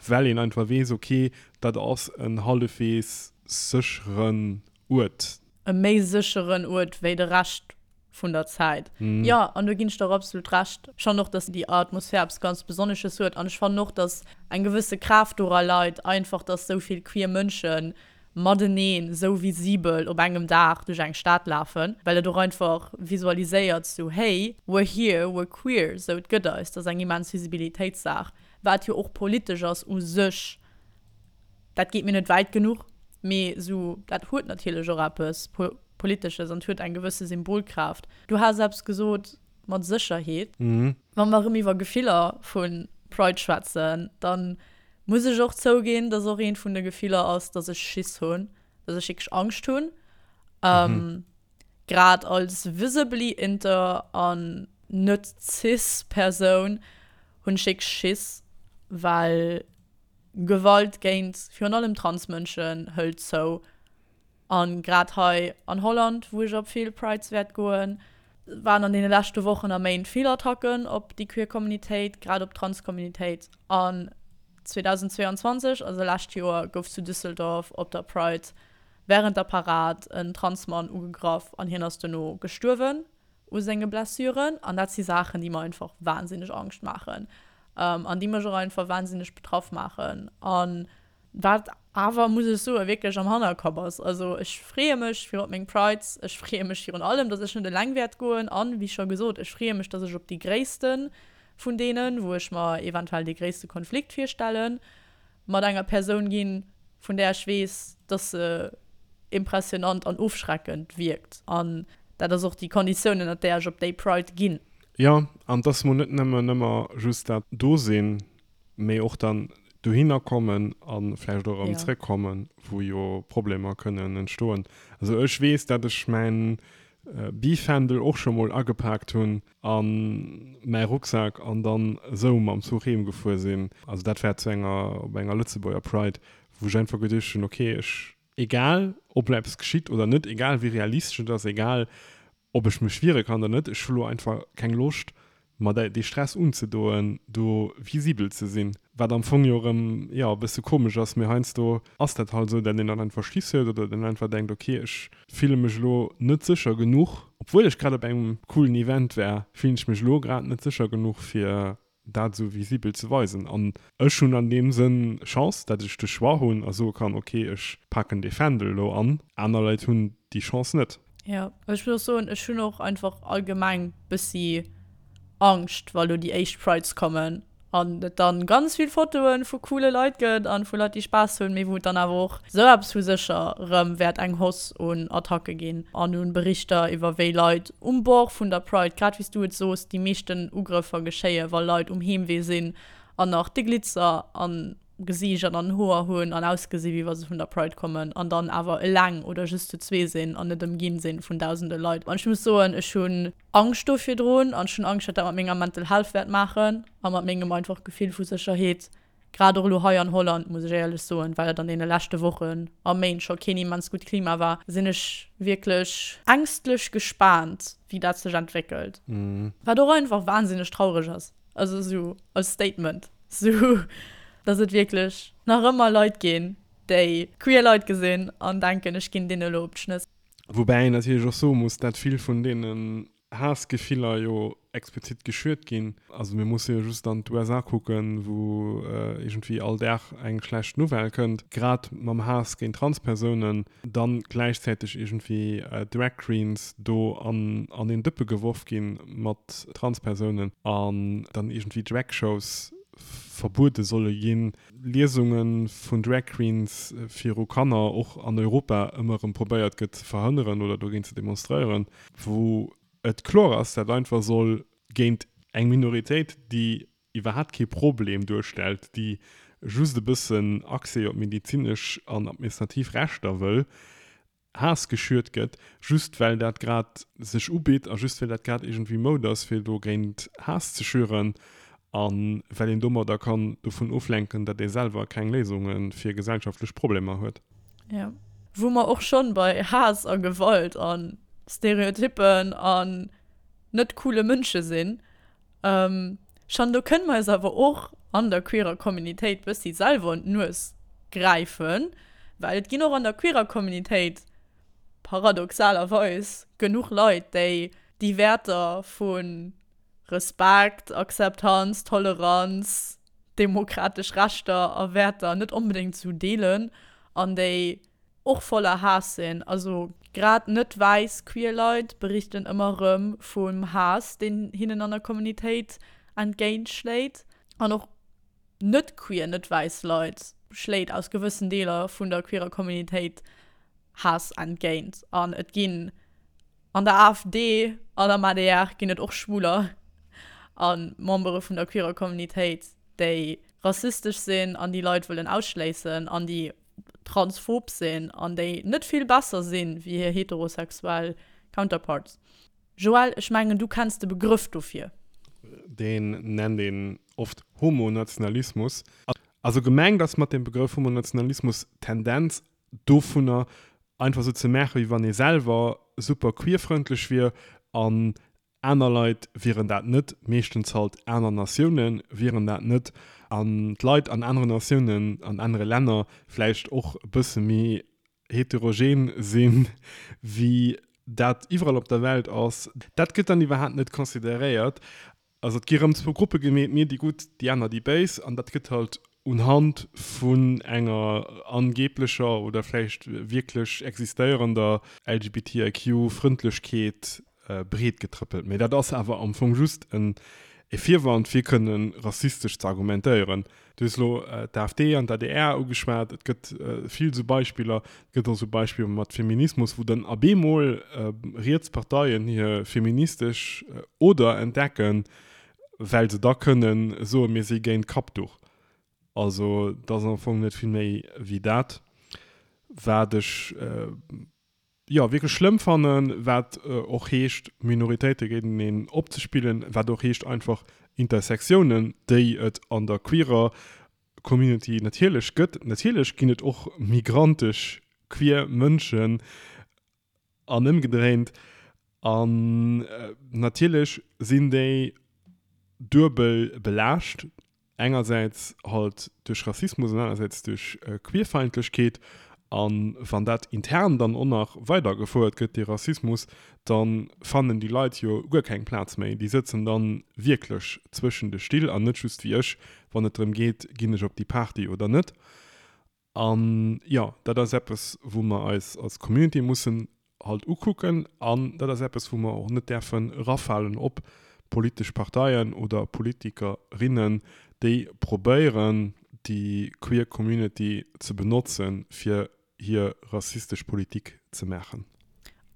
well een einfach weess, ok, dat ass en hallefwees sécheren Uert. E méi sécheren Uert wéi de Rescht vun der Zäit. Jo, an do ginn ech der och absolut Recht. Ech fannen och, dass déi Atmosphär eppes ganz Besonnesches huet. An ech fannen och, dass eng gewësse Kraaft dora leit, einfach, dass esou vill queer Mënsche mateneen esou visibel op engem Dag duerch eng Stad lafen, well et och einfach visualiséiert, sou, hey, we're here, we're queer, sou, et gëtt eis. Dat ass eng immens Visibilitéitssaach, wat jo och politesch ass u sech. Dat geet mir net wäit genuch, mee sou, dat huet natierlech och eppes Politesches an huet eng gewësse Symbolkraaft. Du has eppes gesot mat Sécherheet. Wa mer erëm iwwer Gefiller vu Pride schwätzen, da muss ech och zouginn, dass och eent vun de Gefiller ass, dass ech Schiss hunn, dass ech wierklech Angscht hunn. Grad als visibly inter an net cis Persoun hunn ech wierklech Schiss, well Gewalt géint virun allem Transmënschen hëlt zou. An grad hei an Holland, wou ech op vill Prides wäert goen, waren an deene leschte Wochen a Méint vill Attacken op déi queer Communitéit, grad op d'Trans-Communitéit. An 2022, also lescht Joer, gouf zu Düsseldorf op der Pride wärend der Parad en Transmann ugegraff an hien ass dono gestuerwen. u senge Blessuren. An dat si Saachen, déi mer einfach wahnsinneg Angscht maachen an déi mech och einfach wahnsinneg betraff maachen. An wat awer, muss ech soen, wierklech am Hannerkapp ass. Also ech freeë mech fir op meng Prides, ech freeë mech virun allem, datt ech net eleng wäert goen an, wéi scho gesot, ech freeë mech, datt ech op déi gréisste vun deenen, wou ech mer eventuell dee gréisste Konflikt virstellen, mat enger Persoun ginn, vun där ech weess, dass se impressionant an ofschreckend wierkt. An dat ass och déi Konditioun, ënnert där ech op déi Pride ginn. Jo, an dass mer net nëmmen ëmmer just dat do sinn, mee och dann dohinner kommen a vläicht och erëm zrëckkommen, wou jo Problemer kënnen entstoen. Also ech weess, dat ech mäin Bifändel och scho mol agepaakt hunn a mäi Rucksak an dann esou mam Zuch heem gefuer sinn. Also dat war zu enger, op enger Lëtzebuerger Pride, wou ech einfach geduecht hunn, okay, ech, egal ob elo eppes geschitt oder net, egal wéi realistesch et ass, egal ob ech mech wiere kann oder net, ech hu lo einfach keng Loscht mer dee Stress unzedoen, do visibel ze sinn. Wat am Fong jo erëm, jo, e bësse komesch ass, mee heiansdo ass dat halt esou, dat een dann einfach Schiss huet oder dann einfach denkt, ok, ech fille mech elo net sécher genuch, obwuel ech grad op engem coolen Event war, fillen ech mech elo grad net sécher genuch, fir dat esou visibel ze weisen. An ech hunn an deem Sënn Chance, dat ech de Choix hunn a soe kann, ok, ech paken dee Fändel elo an. Aner Leit hunn déi Chance net. Jo, ech muss och soen, ech hunn och einfach allgemeng bëssi Angscht, wa lo déi éischt Prides kommen an et dann ganz vill Fotoen vu coole Leit gëtt an vu Leit déi Spaass hunn, mee wou et dann awer och sou eppes vu sécher rëm wäert eng Hausse un Attacke ginn an un Berichter iwwer wéi Leit um Bord vun der Pride, grad wéi s du et soos, déi meeschten Ugrëffer geschéie wa Leit um Heemwee sinn an nach de Glitzer am Gesiicht an an den Hoer hunn an ausgesi wéi wa se vun der Pride kommen an dann awer eleng oder just zu zwee sinn an net ëmginn sinn vun dausende Leit. An ech muss soen, ech hunn Angscht do virdrun an ech hunn Angscht wat dat mat menger Mental Health wäert maachen a mat mengem einfach Gefill vu Sécherheet, grad och elo hei an Holland, muss ech éierlech soen, well et an deene leschte Wochen a Méint scho keen immens gutt Klima war, sinn ech wierklech ängstlech gespaant wéi dat sech entwéckelt. Wat och einfach wahnsinneg traureg ass. Also esou als Statement, esou dass et wierklech nach ëmmer Leit ginn, déi queer Leit gesinn an denken, ech ginn deene elo op d'Schnëss. Woubäi een natierlech och soe muss, dat vill vun deenen Haassgefiller jo explizit geschürt ginn. Also mir musse jo just an d'USA kucken, wou iergendwéi all Dag eng schlecht Nouvelle kënnt, grad mam Haass géint Transpersounen. dann gläichzäiteg iergendwéi Drag Queens do an an een Dëppe geworf ginn mat Transpersounen an dann iergendwéi Drag Shows verbuede solle ginn, Liesunge vun Drag Queens viru Kanner och an Europa ëmmer erëm probéiert gëtt ze verhënneren oder dogéint ze demonstréieren, wou et kloer ass, dat einfach soll géint eng Minoritéit, déi iwwerhaapt kee Problem duerstellt, déi just e bëssen Accès op medezinesch an administrativ Rechter wëll, Haass geschürt gëtt, just well dat grad sech ubitt a just well dat grad iergendwéi Moud ass, fir dogéint Haass ze schüren a well een domadder kann dovun oflenken, datt ee selwer keng Léisunge fir gesellschaftlech Problemer huet. Jo. Wou mer och schonn bei Haass a Gewalt a Stereotyppen an net coole Mënsche sinn, Schon do kënne mer eis awer och an der queerer Communitéit bëssi selwer un d'Nues gräifen, well et ginn och an der queerer Communitéit paradoxalerweis genuch Leit, déi déi Wäerter vu Respekt, Akzeptanz, Toleranz, demokratesch Rechter a Wäerter net onbedéngt esou deelen an déi och voller Haass sinn. Also grad net wäiss queer Leit berichten ëmmer erëm vum Haass, deen hinnen an der Communitéit entgéint schléit. An och net queer, net wäiss Leit schléit aus gewëssen Deeler vun der queerer Communitéit Haass entgéint. An et ginn an der AfD an am adr ginn et och Schwuler a Membere vun der queerer Communitéit, déi rassistesch sinn an déi Leit wëllen ausschléissen an déi transphob sinn an déi net vill besser sinn wéi hir heterosexuell Counterparts. Joël, ech mengen du kenns de Begrëff dofir. Deen nennt een oft Homonationalismus. Also gemengt ass mat dem Begrëff Homonationalismus d'Tendenz dovunner einfach sou ze maachen, wéi wann ee selwer super queerfrëndlech wier an Aner Leit wieren dat net, meeschtens halt aner Natioune wieren dat net. An d'Leit an aneren Natiounen, an anere Länner vläicht och e bësse méi heterogen si wéi. Dat iwwerall op der Welt ass. Dat gëtt dann iwwerhaapt net consideréiert. Also et gi rëm zwou Gruppe gemeet, mir déi Gutt, déi aner déi Béis. An dat gëtt halt unhand vun enger angeblecher oder vläicht wierklech existéierender LGBTIQ-Frëndlechkeet breet getrëppelt. Mee dat ass awer am Fong just en e Virwand fir kënne rassistesch ze argumentéieren. Du hues elo d'AfD an d'ADR ugeschwat. Et gëtt vill esou Beispiller. Et gëtt och esou Beispiller mat Feminismus, wou dann ab eemol riets Parteien hir feministesch Oder entdecken, well se da kënne soen, mir si géint d'Kappduch. Also et ass am Fong net vill méi wéi dat, wat ech jo, wierklech schlëmm fannen, wat och heescht, Minoritéite géinteneen opzespillen, wat och heescht, einfach Intersectiounen, déi et an der queerer Community natierlech gëtt. Natierlech ginn et och migrantesch queer Mënschen an ëmgedréint. An natierlech sinn déi duebel belaascht. Engersäits halt duerch Rassismus an anersäits duerch Queerfeindlechkeet. A wann dat intern dann och nach weidergefouert gëtt, dee Rassismus, da fannen déi Leit jo guer keng Plaz méi. Déi sëtzen da wierklech zwëschen de Still an net just wéi ech, wann et drëm geet, ginn ech op déi Party oder net. An jo, dat ass eppes, wou mer eis als Community mussen halt ukucken. An dat ass eppes, wou mer och net däerfen erafalen op politesch Parteien oder Politikerinnen, déi probéieren, déi queer Community ze benotzen, fir hir rassistesch Politik ze maachen.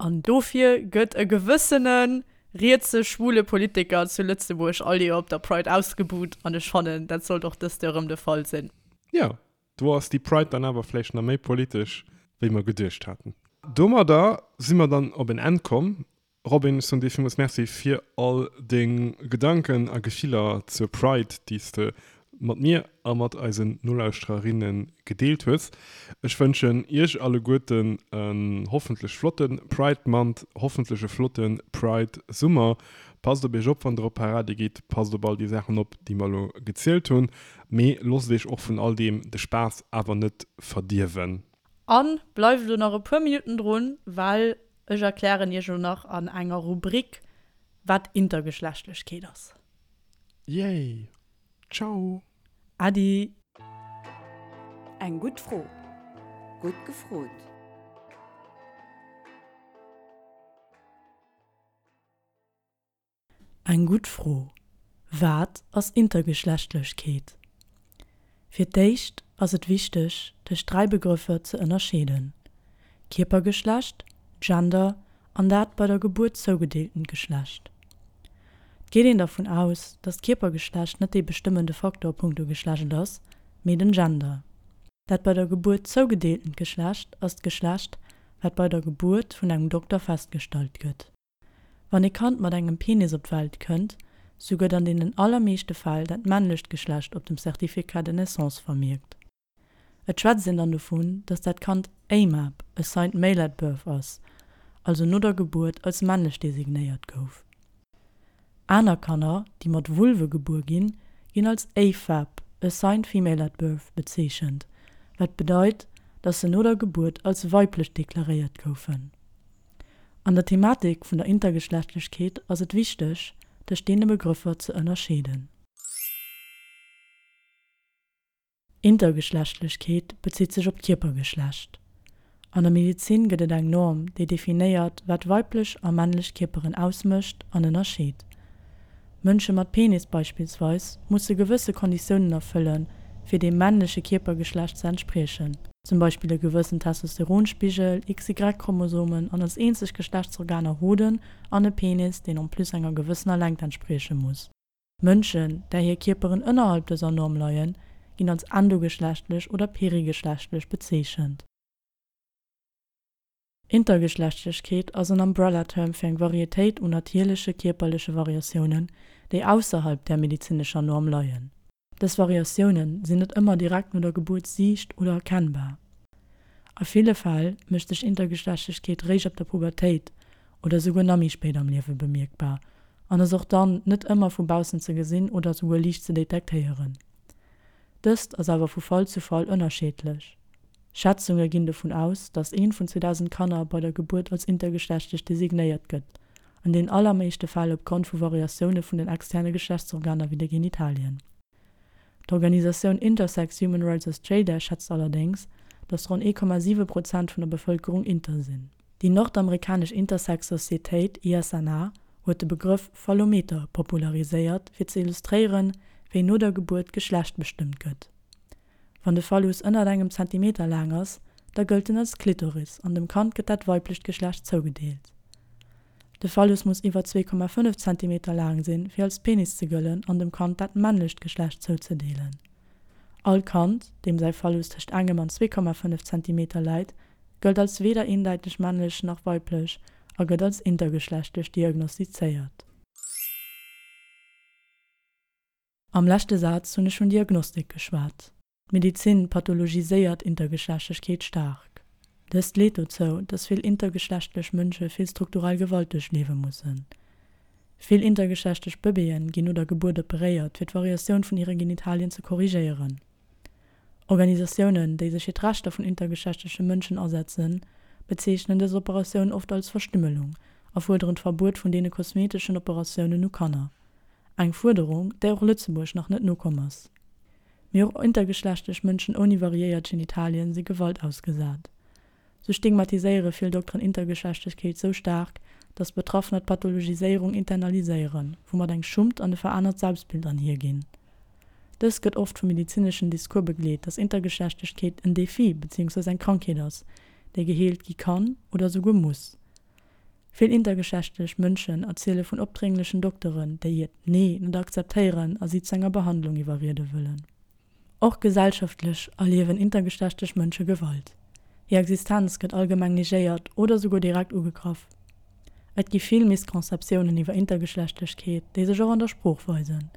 An dofir gëtt e gewëssene rietse schwule Politiker zu Lëtzebuerg all Joer op der Pride ausgebuht. An ech fannen, dat sollt och dëst Joer erëm de Fall sinn. Jo, Do ass déi Pride dann awer vläicht nach méi politesch, wéi mer geduecht haten. Domadder si mer dann op en Enn komm. Robin, ech soen dir villmools Merci fir all deng Gedanken a Gefiller zur Pride, déi s de mat mir a mat eisen Nolauschtererinne gedeelt hues. Ech wënschen iech alleguerten en hoffentlech flotte Pride Month, hoffentlech e flotte Pride Summer. Passt op iech op, wann der op Parade gitt, passt op all déi Saachen op, déi mer elo gezielt hunn. Mee loosst iech och vun all deem de Spaass awer net verdierwen. An bleift elo nach e puer Minutten drun, well ech erklären iech elo nach an enger Rubrik wat Intergeschlechtlechkeet ass. Yay! Ciao! Äddi! Eng gutt Fro. Gutt gefrot! Eng gutt Fro, Wat ass Intergeschlechtlechkeet? Fir d'éischt ass et wichteg, tëscht 3 Begrëffer ze ënnerscheeden, Kierpergeschlecht, Gender an dat bei der Gebuert zougedeeltent Geschlecht. Et geet een dervun aus, datt d'Kierpergeschlecht net dee bestëmmende Faktor punkto Geschlecht ass, mee den Gender. Dat bei der Gebuert zougedeeltent Geschlecht ass d'Geschlecht, wat bei der Gebuert vun engem Dokter festgestallt gëtt. Wann ee Kand mat engem Penis op d'Welt kënnt, sou gëtt an deenen allermeeschte Fäll dat männlecht Geschlecht op dem Certificat de naissance vermierkt. Et schwätzt een dann dovun, datt dat Kand AMAB, Assigned Male at Birth, ass, also no der Gebuert als männlech designéiert gouf. Aner Kanner, déi mat Vulve gebuer ginn, ginn als AFAB, Assigned Female at Birth, bezeechent, wat bedeit, datt se no der Gebuert als weiblech deklaréiert goufen. An der Thematik vun der Intergeschlechtlechkeet ass et wichteg, tëscht deene Begrëffer ze ënnerscheeden. Intergeschlechtlechkeet bezitt sech op d'Kierpergeschlecht. An der Medezin gëtt et eng Norm, déi definéiert, wat weiblech a männlech Kierperen ausmécht an ënnerscheet. Mënsche mat Penis beispillsweis musse gewësse Konditiounen erfëllen, fir dem männleche Kierpergeschlecht ze entspriechen, zum Beispill e gewëssen Testosteronspigel, XY-Chromosomen an als eenzeg Geschlechtsorganer Hoden an e Penis, deen en plus enger gewëssener Längt entsprieche muss. Mënschen, där hir Kierperen ënnerhalb dëser Norm leien, ginn als endogeschlechtlech oder perigeschlechtlech bezeechent. Intergeschlechtlechkeet ass en Umbrella-Term fir eng Varietéit un natierleche kierperleche Variatiounen, déi ausserhalb där medezinescher Norm leien. Dës Variatioune sinn net ëmmer direkt no der Gebuert siicht oder erkennbar. A ville Fäll mécht sech Intergeschlechtlechkeet réischt ab der Pubertéit oder souguer nach méi spéit am Liewe bemierkbar an ass och dann net ëmmer vu baussen ze gesinn oder souguer liicht ze detektéieren. Dëst ass awer vu Fall zu Fall ënnerscheedlech. Schätzunge ginn dovun aus, datt eent vun 2.000 Kanner bei der Gebuert als intergeschlechtlech designéiert gëtt, an den allermeeschte Fäll opgrond vu Variatioune vun den externe Geschlechtsorganer wéi de Genitalien. D'Organisatioun Intersex Human Rights Australia schätzt allerdéngs, datt ronn 1,7 Prozent vun der Bevëlkerung inter sinn. Déi nordamerikanesch Intersex-Societéit, ISNA, huet de Begrëff Phallometer populariséiert, fir ze illustréieren, wéi no der Gebuert d'Geschlecht bestëmmt gëtt. Wann de Phallus ënnert engem Zentimeter laang ass, da gëllt en als Klitoris an dem Kand gëtt dat weiblecht Geschlecht zougedeelt. De Phallus muss iwwer 2,5 Zentimeter laang sinn, fir als Penis ze gëllen an dem Kand dat männlecht Geschlecht zouzedeelen. All Kand, deem säi Phallus tëscht engem an 2,5 Zentimeter läit, gëllt als weder eendeiteg männlech nach weiblech a gëtt als intergeschlechtlech diagnostizéiert. Am leschte Saz hunn ech vun Diagnostik geschwat. D'Medizin pathologiséiert Intergeschlechtlechkeet staark. Dëst leet dozou, dass vill intergeschlechtlech Mënsche vill strukturell Gewalt duerchliewe mussen. Vill intergeschlechtlech Bëbeeën ginn no der Gebuert operéiert, fir d'Variatioun vun hire Genitalien ze korrigéieren. Organisatiounen, déi sech fir d'Rechter vun intergeschlechtleche Mënschen asetzen, bezeechnen dës Operatioun oft als Verstümmelung a fuerderen d'Verbuet vun deene kosmeteschen Operatiounen u Kanner. Eng Fuerderung, där och Lëtzebuerg nach net nokomm ass. Mee och intergeschlechtlech Mënschen ouni variéiert Genitalien si Gewalt ausgesat. Sou stigmatiséiere vill Dokteren Intergeschlechtlechkeet sou staark, datt Betraffener d'Pathologiséierung internaliséieren, woumat eng Schummt an e verännert Selbstbild anhierginn. Dëst gëtt oft vum medezineschen Discours begleet, datt Intergeschlechtlechkeet en Defi beziehungsweise eng Krankheet ass, déi geheelt gi kann oder souguer muss. Vill intergeschlechtlech Mënschen erziele vun opdrénglechen Dokteren, déi hiert Nee net akzeptéieren a si zu enger Behandlung iwwerriede wëllen. Och gesellschaftlech erliewen intergeschlechtlech Mënsche Gewalt. Hir Existenz gëtt allgemeng negéiert oder souguer direkt ugegraff. Et gi vill Misconceptiounen iwwer Intergeschlechtlechkeet, déi sech och an der Sprooch weisen.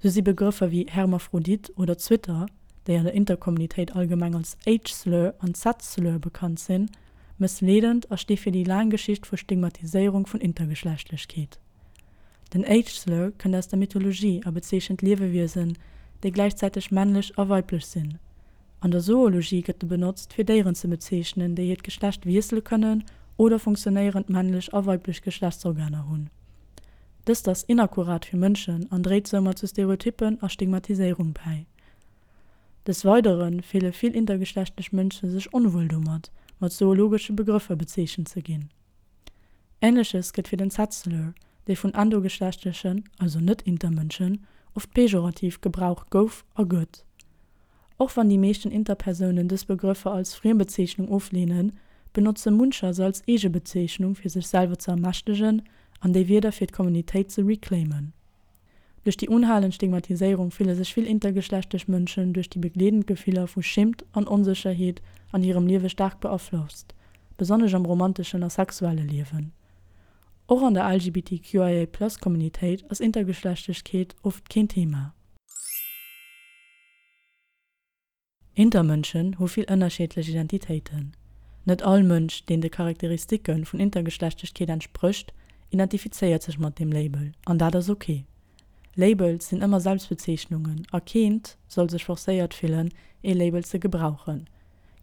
Sou si Begrëffer wéi Hermaphrodit oder Zwitter, déi an der Interkommunitéit allgemeng als H-Slur an Z-Slur bekannt sinn, Mëssleedend a sti fir déi laang Geschicht vu Stigmatiséierung vun Intergeschlechtlechkeet. Den H-Slur kënnt aus der Mythologie a bezeechent Liewewiesen, déi gläichzäiteg männlech a weiblech sinn. An der Zoologie gëtt e benotzt, fir Déieren ze bezeechnen, déi hiert Geschlecht wiessele kënnen oder funktionéierend männlech a weiblech Geschlechtsorganer hunn. Dëst ass inakkurat fir Mënschen an dréit soumat zu Stereotyppen a Stigmatiséierung bäi. Des Weidere fille vill intergeschlechtlech Mënsche sech onwuel domat, mat zoologesche Begrëffer bezeechent ze ginn. Änleches gëtt fir den Z-Slur, dee vun endogeschlechtlechen, also net-inter-Mënschen, oft pejorativ gebraucht gouf a gëtt. Och wann déi meeschten Interpersounen dës Begrëffer als Friembezeechnung ofleenen, benotze muncher se als Eegebezeechnung fir sech selwer ze ermächtegen an déi Wierder fir d'Kommunitéit ze reclaimen. Duerch déi unhalend Stigmatiséierung fille sech vill intergeschlechtlech Mënschen duerch déi begleedend Gefiller vu Schimmt an Onsécherheet an hirem Liewe staark beaflosst, besonnesch am romanteschen a sexuelle Liewen. Och an der LGBTQIA-Plus-Communitéit ass Intergeschlechtlechkeet oft keen Thema. Intermënschen hu vill ënnerschiedlech Identitéiten. Net all Mënsch, deen de Charakteristike vun Intergeschlechtlechkeet entsprécht, identifizéiert sech mat deem Label, an dat ass ok. Labels sinn ëmmer Selbstbezeechnungen a keent soll sech forcéiert fillen, ee Label ze gebrauchen.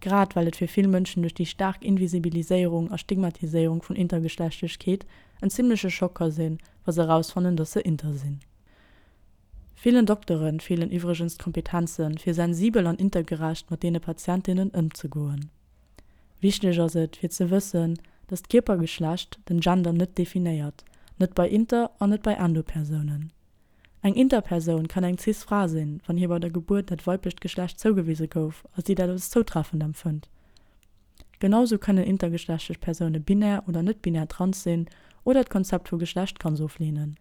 Grad well et fir vill Mënschen duerch déi staark Invisibiliséierung a Stigmatiséierung vun Intergeschlechtlechkeet en zimmleche Schock ka sinn, wa se erausfannen, dass se inter sinn. Villen Doktere feelen iwwregens d'Kompetenzen, fir sensibel an intergerecht mat deene Patientinnen ëmzegoen. Wichteg ass et, fir ze wëssen, dass d'Kierpergeschlecht den Gender net definéiert, net bei inter an net bei endo-Persounen. Eng Interpersoun kann eng cis Fra sinn, wann hir bei der Gebuert dat weiblecht Geschlecht zougewise gouf a si dat als zoutreffend empfënnt. Genau sou kënnen intergeschlechtlech Persoune binär oder net-binär trans sinn oder d'Konzept vu Geschlecht ganz ofleenen.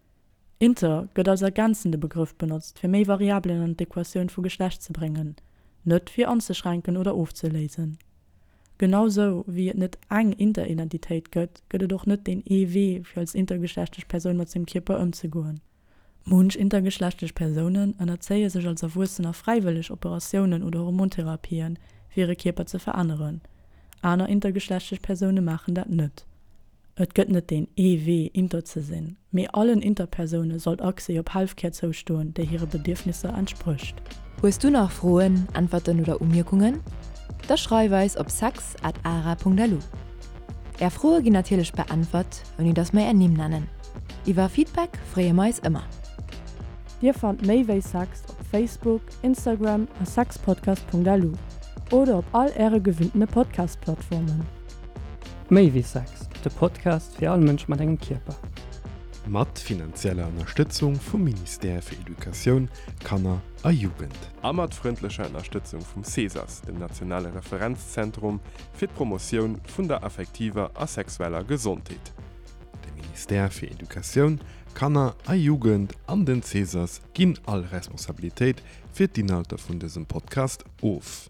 Inter gëtt als ergänzende Begrëff benotzt, fir méi Variabelen an d'Equatioun vu Geschlecht ze bréngen, net fir anzeschränken oder ofzeléisen. Genau sou wéi et net eng Interidentitéit gëtt, gëtt et och net deen ee Wee, fir als intergeschlechtlech Persoun mat sengem Kierper ëmzegoen. Munch intergeschlechtlech Persounen ënnerzéie sech als Erwuessener fräiwëlleg Operatiounen oder Hormontherapien, fir hire Kierper ze veränneren. Aner intergeschlechtlech Persoune maachen dat net. Et gëtt net deen ee Wee, inter ze sinn, mee allen Interpersoune sollt Accès op Healthcare zoustoen, déi hire Bedierfnisser entsprécht. Hues du nach Froen, Äntwerten oder Umierkungen? Da schreif eis op sex at ara.lu. Är Froe ginn natierlech beäntwert, ouni dass mer är Nimm nennen. Iwwer Feedback freeë mer eis ëmmer. Dir fannt méi wéi Sex op Facebook, Instagram a sexpodcast.lu oder op all äre gewinntene Podcast-Plattformen. Méi wéi Sex, de Podcast fir all Mënsch mat engem Kierper. Mat finanzieller Ënnerstëtzung vum Ministère fir Educatioun, Kanner a Jugend. A mat frëndlecher Ënnerstëtzung vum CESAS, dem nationale Referenzzentrum fir d'Promotioun vun der affektiver a sexueller Gesondheet. De Ministère fir Educatioun, Kanner a Jugend an den CESAS ginn all Responsabilitéit fir d'Inhalter vun dësem Podcast of.